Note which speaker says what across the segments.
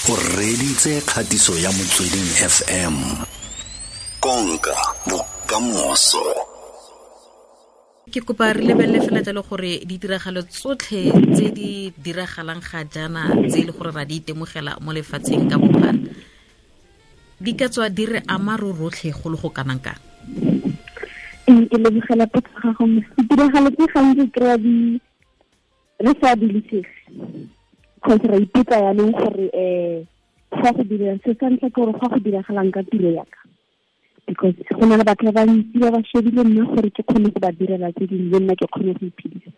Speaker 1: O reditse kgatiso ya Motsweding FM. Konka bokamoso.
Speaker 2: Ke kopa re lebelele fela jalo gore ditiragalo tsotlhe tse di diragalang ga jaana tse e le gore ra di itemogela mo lefatsheng ka bophara di ka tswa di re ama ro rotlhe go le go kanang kang.
Speaker 3: Ke lebogela potso ga gago. Ditiragalo tse gantsi kry-a di re sa dilisege because ra ipotsa yanong gore fa go dira se sa ntlha ke gore fa go diragalang ka tiro yaka, because go na le batho ba bantsi ba ba shebile nna gore ke kgone go ba direla tse dingwe le nna ke kgone go iphedisa.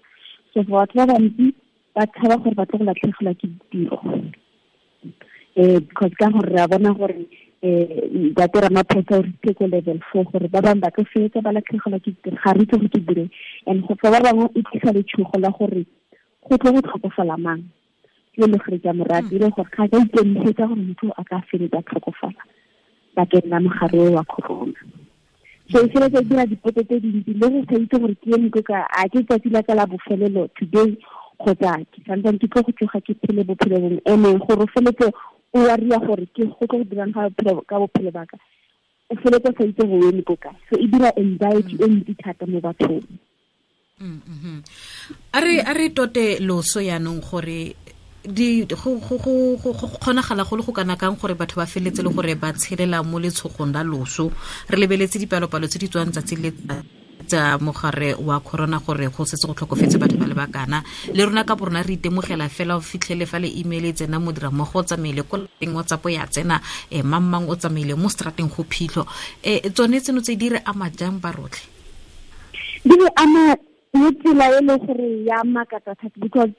Speaker 3: So for batho ba bantsi ba tshaba gore ba tlo go latlhegelwa ke ditiro, because ka gore re a bona gore Ntate Ramaphosa o ritse ko level 4 gore ba bangwe ba tlo fetsa ba latlhegelwa ke ditiro, ga re itse gore ke dire. And go fa ba bangwe e tlisa letshogo la gore go tlo go tlhokofala mang, ke le gore ke a mo rata, e le gore ga ka ikemisetsa gore motho a ka feletsa tlhokofala bakeng la mogare wa corona. So e feletsa e dira dipotso tse dintsi le go sa itse gore ke eme ko ka, a ke tsatsi la ka la bofelelo today kgotsa ke santsane ke tlo go tsoga ke phele bophelo bongwe. And-e gore o feletse o worry-a gore ke go tlo go dirang ka bophelo ba ka, o feletse o sa itse gore o eme ko kae. So e dira anxiety e ntsi thata mo bathong.
Speaker 2: A re tote loso yanong gore di go go go go kgonagala go le go kana kang gore batho ba feletse le gore ba tshelela mo letshogong la loso. Re lebeletse dipalopalo tse di tswang tsatsi le tsa mogare wa corona gore go setse go tlhokofetse batho ba le bakana, le rona ka borona re itemogela fela o fitlhele fa le email e tsena modira mmogo o tsamaile ko lapeng, WhatsApp ya tsena, mang mang o tsamaile mo strateng go phitlho. Tsone tseno tse di re ama jang ba rotlhe?
Speaker 3: Di re ama mo tsela e le gore ya makatsa thata, because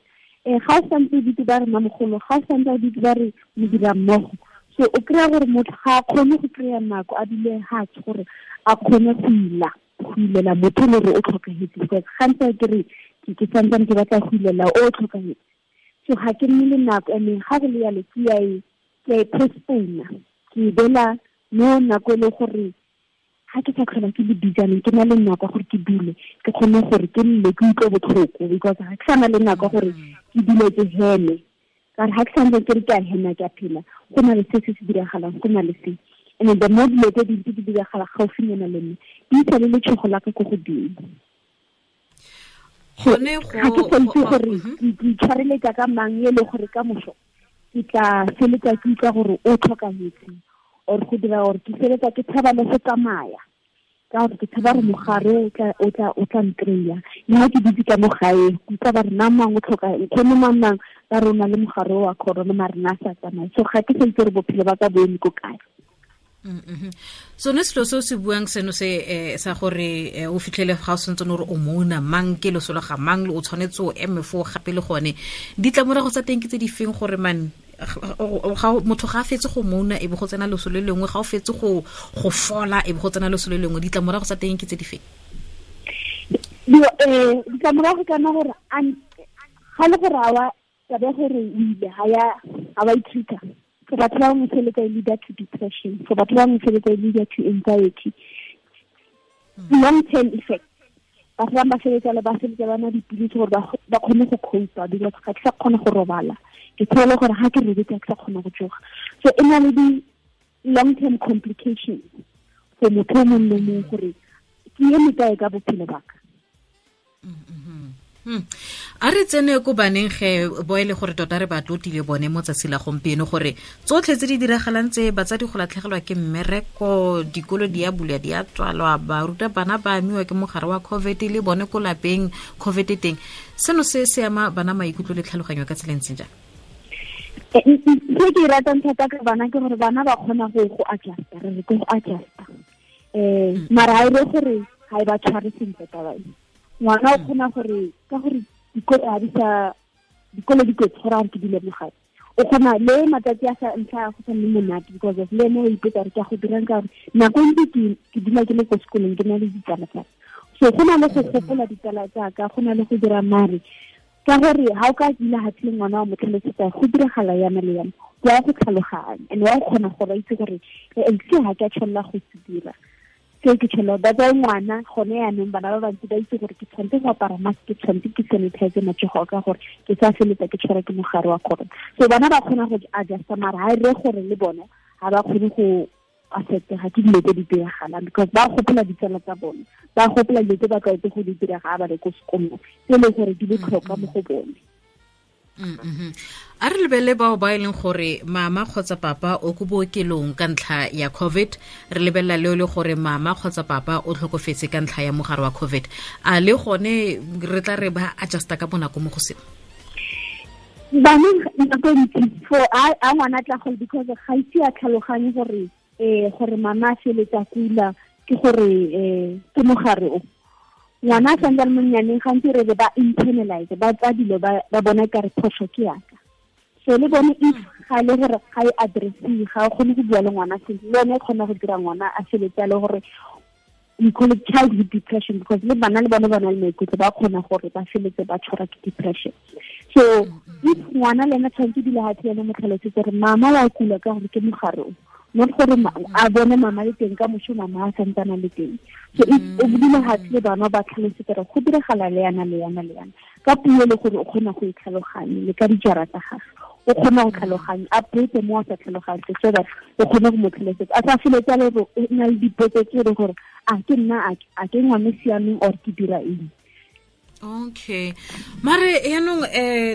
Speaker 3: ga o santse o ditse ba re mamogolo, ga o santse o ditse ba re modira mmogo, so o kry-a gore motho ga a kgone go kry-a nako a dule fatshe gore a kgone go ila, go ilela motho le gore o tlhokahetse, because gantsi ke re ke santsane ke batla go ilela o tlhokahetse, so ga ke nne le nako. And ga go le yalo ke a e postpone-a, ke e beela mo nako e le gore ga ke sa tlhola ke le busy jaanong, ke na le nako ya gore ke dule ke kgone gore ke nne ke utlwe botlhoko, because ga ke sa na le nako ya gore ke dule ke heme, ka gore ga ke santse ke re ke a hema ke a phela, go na le se se se diragalang, go na le se. And then the more dilo tse dintsi di diragala gaufinyana le nna, di isa le letshogo la ka ko godimo. So,
Speaker 2: Gone
Speaker 3: ga ke sa itse
Speaker 2: go,
Speaker 3: gore ke itshwareletsa ka mang e le gore ka moso ke tla feletsa ke utlwa gore o tlhokahetse, or go dira gore ke feletsa ke tshaba le go tsamaya, ka gore ke tshaba gore mogare o tla nkry-a. Le ha ke dutse ka mo gae, ke utlwa ba re mang mang o tlhoka, nkgono mang mang ba re o na le mogare wa corona, mare nna a sa tsamaye. So ga ke sa itse gore bophelo ba ka bo eme ko kae.
Speaker 2: Sone selo se o se buang seno se sa gore o fitlhele ga o santse o re o mouna mang, ke loso la ga mang, o tshwanetse o eme foo gape le gone. Ditlamorago tsa teng ke tse di feng gore man, motho ga a fetse go mouna e be go tsena loso le lengwe, ga o fetse go fola e be go tsena loso le lengwe, ditlamorago tsa teng ke tse di feng?
Speaker 3: Ditlamorago ka nna gore ga le gore ga wa taba ya gore o ile, ga wa ithuta. For batho ba bangwe feletsa e leader to depression, for batho ba bangwe feletsa e leader to anxiety, long term effect. Batho ba bangwe ba feletsa le ba feletsa ba nwa dipilisi gore ba kgone go cope-a, because ga ke sa kgona go robala, ke tshola gore ga ke robetse ga ke sa kgona go tsoga. So e na le di long term complications for motho o mongwe le mongwe gore ke eme kae ka bophelo ba ka.
Speaker 2: A re tsene ko baneng ge bo e le gore tota re ba tlotile bone mo tsatsi la gompieno, gore tsotlhe tse di diragalang tse, batsadi go latlhegelwa ke mmereko, dikolo di a bulwa di a tswalwa, baruta bana ba amiwa ke mogare wa COVID le bone ko lapeng COVID teng, seno se se ama bana maikutlo le tlhaloganyo ka tsela e ntseng jang?
Speaker 3: Se ke e ratang thata ka bana ke gore bana ba kgona go adjusta, re re ke go adjusta. Mara ha e le gore ha e ba tshware sentle taba e. Ngwana o kgona gore, ka gore dikolo ha di sa, dikolo di kotsi gore a re ke dule mo gae. O kgona le matsatsi a sa ntlha a go sa nne monate, because of le ene o ipotsa gore ke a go dirang, ka gore nako e ntsi ke dula ke le ko sekolong ke na le ditsala tsa ka. So go na le go gopola ditsala tsa ka, go na le go dira mare, ka gore ha o ka dula hatshe le ngwana wa mo tlhalosetsa go diragala yana le yana, wa go tlhaloganya and wa go kgona gore a itse gore, se ha ke a tshwanela go se dira. Seo ke tshelo ba tsaya ngwana gone yaanong bana ba bantsi ba itse gore ke tshwanetse go apara mask, ke tshwanetse ke sanitize matsogo ka gore ke sa feletsa ke tshwara ke mogare wa corona. So bana ba kgona go adjusta, mara ha e re gore le bone ga ba kgone go affectega ke dilo tse di diragalang, because ba gopola ditsala tsa bone, ba gopola dilo tse ba tlwaetse go di dira ga ba le ko sekolong, tse e leng gore di botlhokwa mo go bone.
Speaker 2: A re lebelele bao ba e leng gore mama kgotsa papa o ko bookelong ka ntlha ya COVID, re lebelela leo le gore mama kgotsa papa o tlhokofetse ka ntlha ya mogare wa COVID, a le gone re tla re ba adjusta ka bonako mo go seo?
Speaker 3: Bana nako ntsi for a ngwana tla go, because ga ise a tlhaloganye gore gore mama a feletsa kula ke gore ke mogare o. Ngwana a santse a le monnyaneng gantsi re ba internalize, ba tsaya dilo ba bona ka re phoso ke yaka. So le bone if ga le gore ga e addressiwe, ga o kgone go bua le ngwana sentle, le yone e kgona go dira ngwana a feletse a le gore we call it childhood depression, because le bana le bone ba na le maikutlo, ba kgona gore ba feletse ba tshwarwa ke depression. So if ngwana le ena tshwanetse dula gatshe ene mo tlhalosetse gore mama wa kula ka gore ke mogare o, not gore a bone mama le teng ka moso mama a santsana le teng. So if o dula gatshe le bana ba tlhalosetse gore go diragala le yana le yana le yana ka puo le gore o kgona go e tlhaloganya le ka dijara tsa gagwe o kgona go tlhaloganya, a botse mo a sa tlhaloganye so that o kgone go mo tlhalosetsa, a sa feletse a le gore o na le dipotso tse e gore a ke nna a ke ngwana siameng or ke dira eng.
Speaker 2: Okay, mare yaanong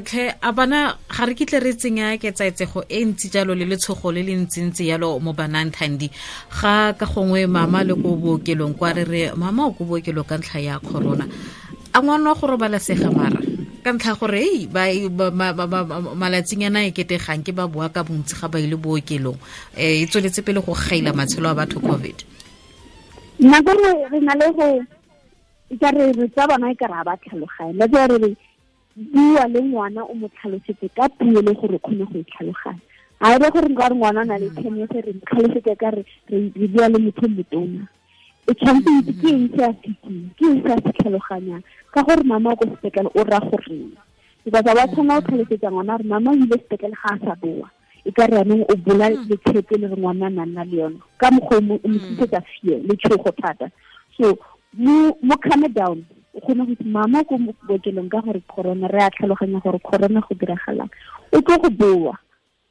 Speaker 2: tlhe a bana ga re kitle re tsenya ketsaetsego e ntsi jalo le letshogo le le ntsintsi yalo mo banang Thandi, ga ka gongwe mama le ko bookelong kwa re re mama o ko bookelong ka ntlha ya corona, a ngwana wa go robalasega mara ka ntlha gore ei malatsinyana e ketegang ke ba boa ka bontsi ga ba ile bookelong, e tsweletse pele go gaila matshelo a batho COVID.
Speaker 3: Nako nngwe re na le go ka re tsa bana e ka re ba tlhaloganye, la tsa re bua le ngwana o mo tlhalosetse ka puo le gore o kgone go e tlhaloganya. Ha e re gore nka re ngwana a na le 10 years re mo tlhalosetse ka re re bua le motho motona, e tshwanetse itse ke eng se a se itseng, ke eng se a se tlhaloganyang, ka gore mama o ko sepetlele o raya goreng, because ba tshwana go tlhalosetsa ngwana gore mama o ile sepetlele ga a sa boa, e ka re yanong o bola letshepe le re ngwana a nna le yone ka mokgwa o mo tlisetsa fear le tshogo thata. So mo calm down, o kgone go itse mama ko bookelong ka gore corona, re a tlhaloganya gore corona go diragalang, o tlo go boa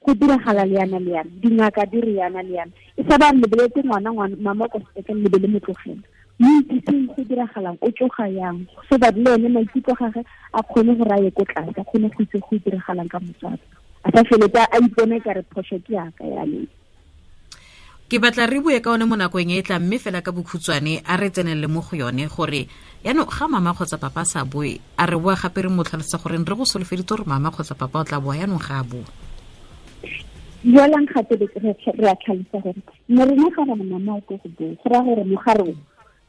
Speaker 3: go diragala le yana le yana, dingaka di re yana le yana, e sa ba re lebeletse ngwana mama ko sepetlele lebe le mo tlogela, mo itsiseng go diragalang, o tsoga yang, so that le ene maikutlo gagwe a kgone go raya ko tlase, a kgone go itse go diragalang ka motswadi, a sa feletse a ipone ka re phoso ke yaka yaneng.
Speaker 2: Ke batla re bue ka one mo nakong e tlang, mme fela ka bokhutshwane a re tsenelele mo go yone gore yaanong ga mama kgotsa papa a sa boe, a re boa gape re mo tlhalosetsa gore re go solofeditse gore mama kgotsa papa o tla boa, yaanong ga a boa.
Speaker 3: Jaanong gape re a tlhalosa gore ne rena ga re mama o tlo go boa, go raya gore mogare o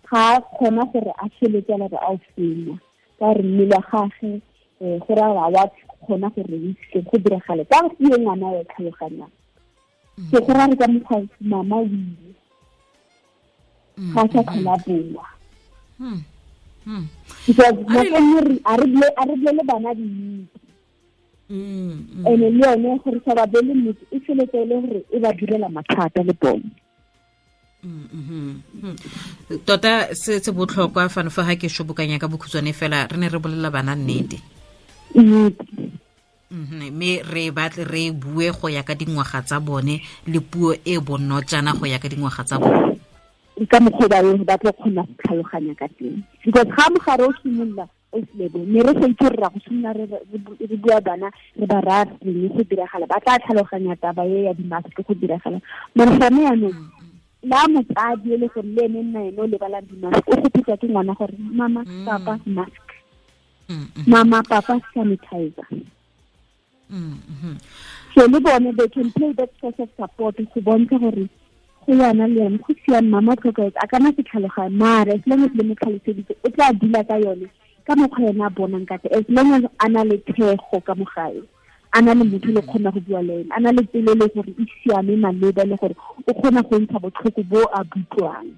Speaker 3: ga a kgona gore a feletse a re a o fenya ka gore mmele wa gagwe go raya gore a wa kgona gore o itse go diragale ka gore ke ngwana o e tlhaloganyang. So go raya ka mokgwa mama o ile ga sa tlhola boa. Because nako nngwe a re bolele bana nnete, ene le yone gore sa ba bele nnete e feletse e le gore e ba direla mathata le bone.
Speaker 2: Tota se se botlhokwa fano fa ga ke shobokanya ka bokhutshwane fela, re ne re bolela bana nnete, mme re batle re bue go ya ka dingwaga tsa bone le puo e bonotjana go ya ka dingwaga tsa bone,
Speaker 3: ka mokgwa ba tlo kgona go tlhaloganya ka teng. Because ga mogare o simolola o selebo, ne re sa itse gore ra go simolola re bua bana re ba raya reng go diragala, ba tla tlhaloganya taba e ya di-mask go diragala. Mare gone yaanong la motsadi e le gore le ene nna ene o lebalang di-mask, o gopotsa ke ngwana gore mama papa mask, mama papa sanitizer. So le bone they can play that source of support go bontsha gore go yana le yone go siame, mama tlhokaetse a kana se tlhaloganye, mare as long as le mo tlhaloseditse o tla dula ka yone ka mokgwa yena a bonang ka teng, as long as a na le thego ka mo gae, a na le motho le kgona go bua le ene, a na le pelo le gore e siame maleba le gore o kgona go ntsha botlhoko bo a butlwang,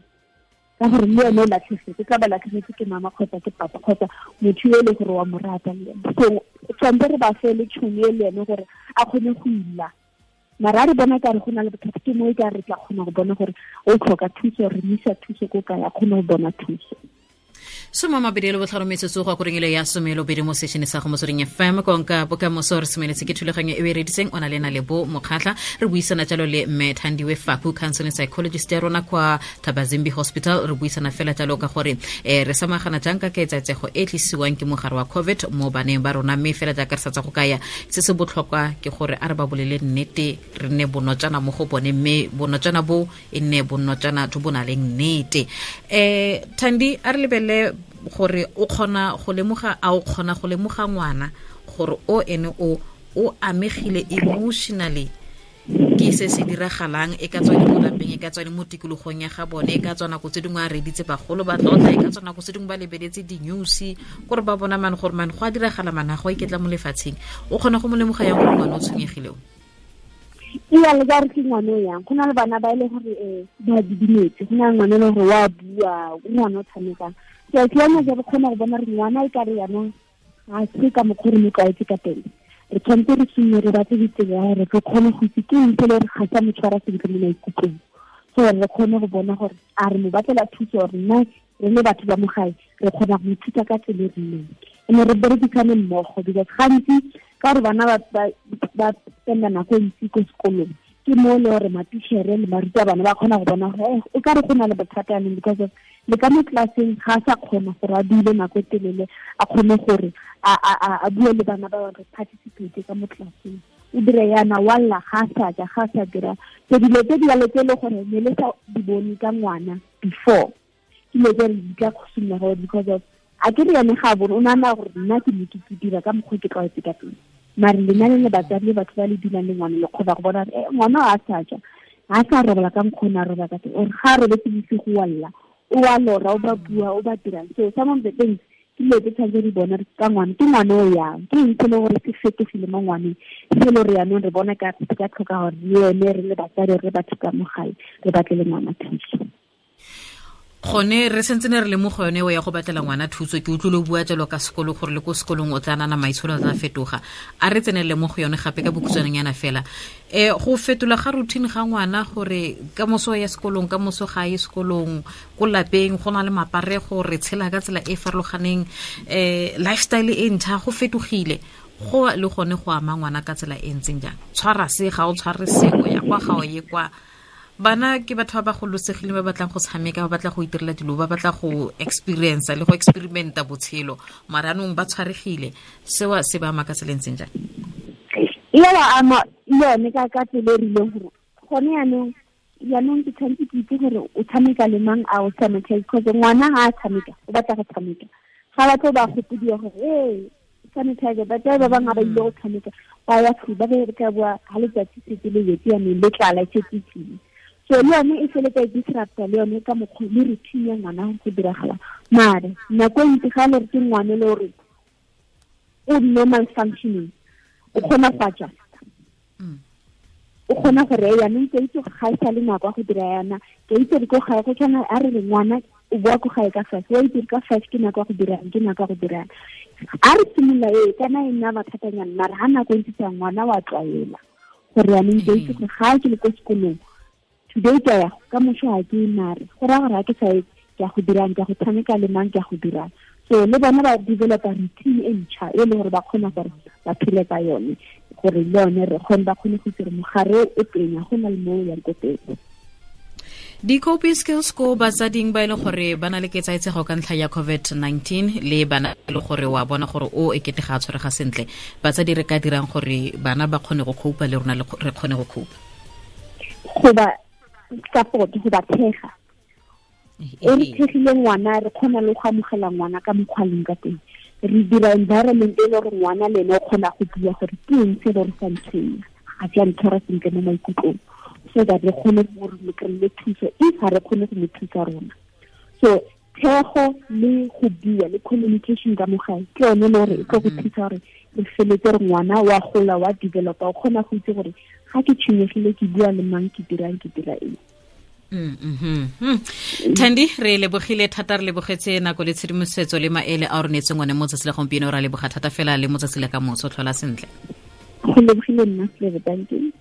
Speaker 3: ka gore le ene o latlhegetse, tla ba latlhegetse ke mama kgotsa ke papa kgotsa motho yo e le gore wa mo rata le ene. So tshwanetse re ba fe le tšhono e le ene gore a kgone go ila Mara re bona ka re go na le bothata, ke mo e ka re tla kgona go bona gore o tlhoka thuso, re mo isa thuso ko kae, a kgone go bona thuso.
Speaker 2: 25 metsotso go akoreng ile ya 12 mo sešene sa go Motsweding FM, konka bokamoso. Re semeletse ke thulaganyo e o e reditseng o na le na le bo Mokgatlha. Re buisana jalo le mme Thandiwe Faku, counseling psychologist ya rona kwa Thabazimbi Hospital. Re buisana fela jalo ka gore re samagana jang ka ketsaetsego e tlisiwang ke mogare wa COVID mo baneng ba rona. Mme fela jaaka re sa tsa go kaya, se se botlhokwa ke gore a re ba bolele nnete, re nne bonotsana mo go bone, mme bonotsana bo e nne bonotsana jo bo na leng nnete. Thandi, a re lebelele gore o kgona go lemoga, a o kgona go lemoga ngwana gore o ene o amegile emotionally ke se se diragalang, e ka tswa le mo lapeng, e ka tswa le mo tikologong ya ga bone, e ka tswa nako tse dingwe a reditse bagolo ba tlotla, e ka tswa nako tse dingwe ba lebeletse di-news kore ba bona mane gore mane go a diragala, mane ga go a iketla mo lefatsheng. O kgona go mo lemoga yang gore ngwana o tshwenyegile o?
Speaker 3: Iya, le ka re ke ngwana o yang. Go na le bana ba e le gore ba didimetse, go na le ngwana e le gore wa bua, o ngwana o tshamekang. So ke yone re kgona go bona re ngwana e ka re yanong ga se ka mokgwa re mo tlwaetse ka teng. Re tshwanetse re simolole re batle ditsela ya gore re kgone go itse ke eng se le gore ga sa mo tshwara sentle mo maikutlong, so re kgone go bona gore a re mo batlela thuso, gore nna re le batho ba mo gae re kgona go ithuta ka tsela e rileng, ene re berekisane mmogo. Because gantsi ka gore bana ba spenda nako e ntsi ko sekolong, ke mo le gore matichere le barutabana ba kgona go bona gore o ka re go na le bothata yanong, because of le ka mo tlelaseng ga a sa kgona gore a dule nako e telele, a kgone gore a bue le bana ba bangwe, participate ka mo tlelaseng, o dire yana wa lla, ga a sa ja, ga a sa dira. So dilo tse di jalo tse e le gore ne le sa di bone ka ngwana before, ke dilo tse re di tla simolola gore because of a ke re yone ga a bone, o nagana gore nna ke ne ke dira ka mokgwa ke tlwaetse ka teng. Mare lena le le batsadi le batho ba le dulang le ngwana, le kgona go bona gore ngwana a sa ja, ga a sa robala ka mokgwa o ne a robala ka teng, or ga a robetse bosigo wa lla, o wa lora, o ba bua, o ba dirang. So some of the things ke dilo tse tshwanetse di bona ka ngwana, ke ngwana o yang, ke eng se le gore se fetogile mo ngwaneng, se le gore yanong re bona ka se ka tlhoka gore le ene re le batsadi, re batho ka mo gae, re batle le ngwana thuso.
Speaker 2: Gone re sentse ne re le mo go yone o ya go batlela ngwana thuso. Ke utlwile o bua jalo ka sekolo gore le ko sekolong o tla nana maitsholo a tla fetoga. A re tsenelele mo go yone gape ka bokhutshwaneng fela. Go fetola ga routine ga ngwana gore ka moso ya sekolong, ka moso ga ye sekolong, ko lapeng go na le maparego, re tshela ka tsela e farologaneng, lifestyle e ntšha, go fetogile. Go le gone go ama ngwana ka tsela e ntseng jang? Tshwara se, ga o tshware se, o ya kwa, ga o ye kwa. Bana ke batho ba ba gololosegileng, ba batlang go tshameka, ba batla go itirela dilo, ba batla go experience le go experimenta botshelo, mara anong ba tshwaregile. Seo se ba ama ka tsela e ntseng jang?
Speaker 3: E ba ama le yone ka tsela e rileng gore gone yanong ke tshwanetse ke itse gore o tshameka le mang, a o sanitize, because ngwana ga a tshameka o batla go tshameka, ga batlo ba gopodiwa gore ee sanitizer. Batsadi ba bangwe ba ile go tshameka, ba ya ba be ka bua ga letsatsi setse le wetse yanong le tlala e setse tlile. So le yone e feletsa e disrupta le yone ka mokgwa le routine ya ngwana go diragala. Mare nako e ntsi ga le re ke ngwana le gore o normal functioning, o kgona go adjusta, o kgona gore yanong ke itse ga e sa le nako ya go dira yana, ke itse re ko gae go tshwana, a re re ngwana o boa ko gae ka 5, wa itse ka 5 ke nako ya go dirang, ke nako ya go dirang. A re simolola e kana e nna mathatanyana, mare ga nako e ntse tsa ngwana wa tlwaela gore yanong ke itse gore ga ke le ko sekolong today ke ya ka moso ga ke mare go raya gore ga ke sa ye ke ya go dirang, ke ya go tshameka le mang, ke ya go dirang. So le bona ba developa routine e ntšha e le gore ba kgona gore ba phele ka yone, gore le yone re kgone ba kgone go itse gore mogare o teng, ga gona le mo o yang ko teng.
Speaker 2: Di-coping skills ko batsading ba e le gore ba na le ketsaetsego ka ntlha ya COVID-19, le bana e le gore wa bona gore o e kete ga a tshwarega sentle, batsadi re ka dirang gore bana ba kgone go copa le rona re kgone go copa?
Speaker 3: Go ba support, go ba thega. E re thegile ngwana, re kgona le go amogela ngwana ka mokgwa leng ka teng. Re dira environment e le gore ngwana le ene o kgona go bua gore ke eng se le gore sa ntshwenya, ga se a ntshwara sentle mo maikutlong, so that re kgone gore re kry-e thuso if ga re kgone go mo thusa rona. So thego le go bua le communication ka mo gae ke yone le gore e tlo go thusa gore re feletse re ngwana wa gola, wa developa, o kgona go itse gore ga ke tshwenyegile ke bua le mang, ke dirang, ke dira eng.
Speaker 2: Thandi, re lebogile thata, re lebogetse nako le tshedimosetso le maele a o re neetseng one mo tsatsi la gompieno. Ra leboga thata fela le mo tsatsi la ka moso, tlhola sentle.
Speaker 3: Go lebogile nna, Slebe, thank you.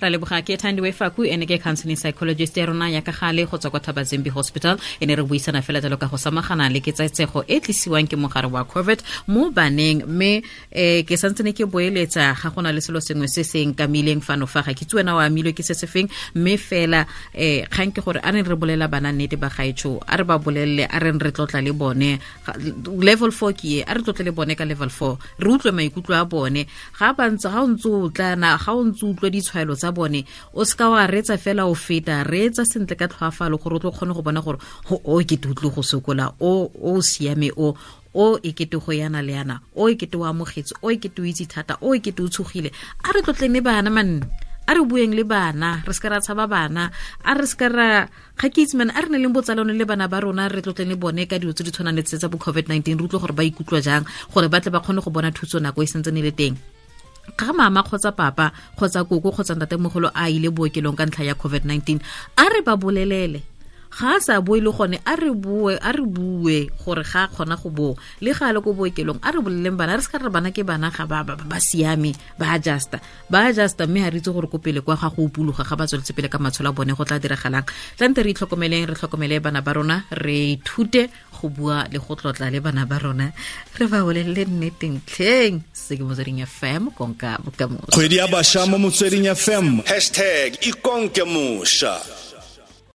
Speaker 2: Ra leboga. Ke Thandiwe Faku, ene ke counseling psychologist ya rona ya ka gale go tswa kwa Thabazimbi Hospital. E ne re buisana fela jalo ka go samagana le ketsaetsego e tlisiwang ke mogare wa COVID mo baneng. Mme ke santse ne ke boeletsa, ga gona le selo sengwe se se nkamileng fano fa, ga ke itse wena o amilwe ke se se feng, mme fela kgang ke gore a reng re bolela bana nnete ba gaetsho, a re ba bolelele, a reng re tlotla le bone. Level 4 ke e, a re tlotle le bone ka level 4, re utlwe maikutlo a bone ga ba ntse, ga o ntse o tlana, ga o ntse utlwa ditshwaelo tsa bone, o seka wa reetsa fela o feta, reetsa sentle ka tlhoafalo gore o tlo kgone go bona gore o ke te utlwe go sokola, o siame, o e kete go yana le yana, o e kete o amogetse, o e kete o itse thata, o e kete o tshogile. A re tlotleng le bana man, a re bueng le bana, re seka ra tshaba bana, a re seka ra ga ke itse man, a re ne leng botsalano le bana ba rona, re tlotleng le bone ka dilo tse di tshwanang le tse tsa bo COVID-19, re utlwe gore ba ikutlwa jang, gore ba tle ba kgone go bona thuso nako e sentse ne le teng. Ga mama kgotsa papa kgotsa koko kgotsa ntatemogolo a ile bookelong ka ntlha ya COVID-19, a re ba bolelele. Ga a sa boe le gone, a re bue, a re bue gore ga a kgona go boa le ga a le ko bookelong. A re boleleng bana, re se ka re bana ke bana, ga ba siame, ba adjusta, ba adjusta, mme ga re itse gore ko pele kwa ga go upuloga ga ba tsweletse pele ka matshelo a bone go tla diragalang. Tlante re itlhokomeleng, re tlhokomele bana ba rona, re ithute go bua le go tlotla le bana ba rona, re ba bolelele nneteng tlheng. Se ke Motsweding FM, konka bokamoso.
Speaker 1: Kgwedi ya bašwa mo Motsweding FM, hashtag ikonke mošwa.